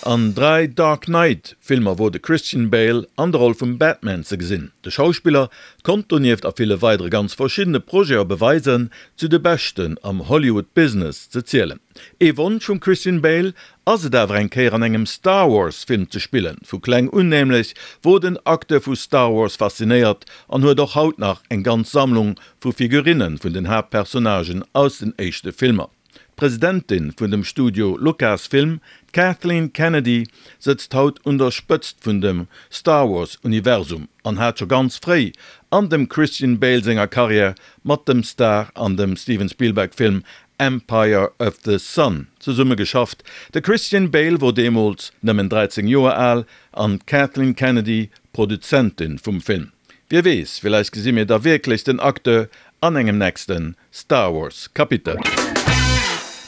An 3 Dark Knight Filmer wor de Christian Bale an der Roll vum Batman ze gesinn. De Schauspiller konnt donieft a ville weidere ganz verschiddene Projete beweisen, zu de Beschten am Hollywood Business ze zielen. Ee Wonsch vum Christian Bale ass et awer eng Kéier an engem Star Wars Film ze spillen. Vu kleng un nämlech wor den Acteur vu Star Wars faszinéiert an huet och haut nach eng ganz Sammlung vu Figurinnen vun den Haaptpersonnagen aus den éischte Filmer. D'Presidentin vun dem Studio Lucasfilm, d'Kathleen Kennedy, sëtzt haut un der Spëtzt vun dem Star Wars Universum an hat scho ganz fréi an dem Christian Bale senger Karriär mat dem Star an dem Steven Spielberg Film Empire of the Sun zesumme geschafft. De Christian Bale wor deemools nëmmen 13 Joer al an d'Kathleen Kennedy Produzentin vum Film. Wie weess, villäicht gesi mir da wierklech den Acteur an engem nächste Star Wars Kapitel.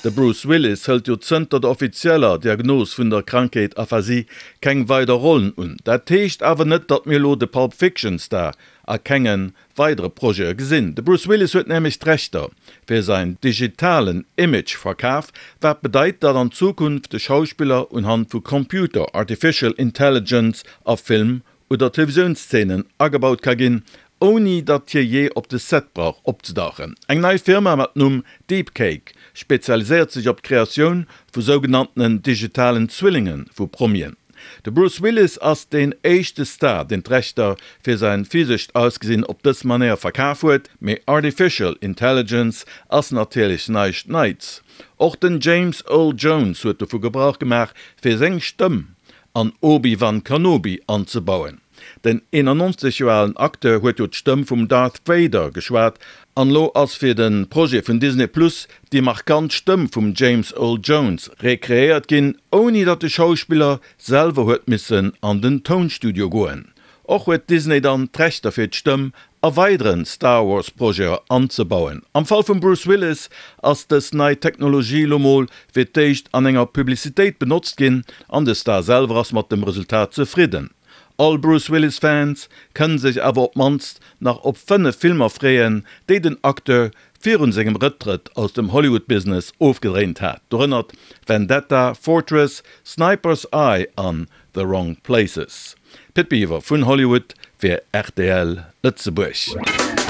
De Bruce Willis hëlt jo zënter der offizieller Diagnos vun der Krankheet Aphasie keng weider Rollen un. Dat heescht awer net, datt mir elo de Pulp Fiction Star a kenge weidere Projete gesinn. De Bruce Willis huet nämlech d'Rechter fir säin digitalen Image verkaf, wat bedeit, datt an Zukunft de Schauspiller unhand vu Computer, Artificial Intelligence a Film oder Televisiounszenen agebaut ka ginn, ouni datt hie jee op de Set brauch opzedauchen. Eng nei Firma mat Numm Deepcake spezialiséiert sech op d'Kreatioun vu sougenanntenen digitalen Zwillinge vu Promien. De Bruce Willis ass deen éischte Star, deen d'Rechter fir säin physescht Ausgesinn op dës Manéier verkaf huet, mee Artificial Intelligence ass natierlech näischt Neits. Och den James Earl Jones huet dovu Gebrauch gemaach, fir seng Stëmm an Obi-Wan Kanobi anzebauen. Den 91 Joer alen Acteur huet jo d'Stëmm vum Darth Vader geschwat an elo ass fir de Projet vun Disney Plus déi markant Stëmm vum James Earl Jones rekreéiert ginn, ouni datt de Schauspiller selwer huet missen an den Tounstudio goen. Och huet Disney dann d'Rechter fir d'Stëmm a weideren Star Wars Projete anzebauen. Am Fall vum Bruce Willis ass dës nei Technologie lo mol fir d'éischt an enger Publicitéit benotzt ginn an de Star selwer ass mat dem Resultat zefridden. All Bruce Willis Fans kënnen sech awer op mannst nach op 5 Filmer freeën, déi den Acteur virun sengem Rëcktrëtt aus dem Hollywood Business ofgedréint hat, dorënner Vendetta, Fortress, Sniper's Eye an The Wrong Places. Pit Biwer vun Hollywood fir rtl Lëtzebuerg.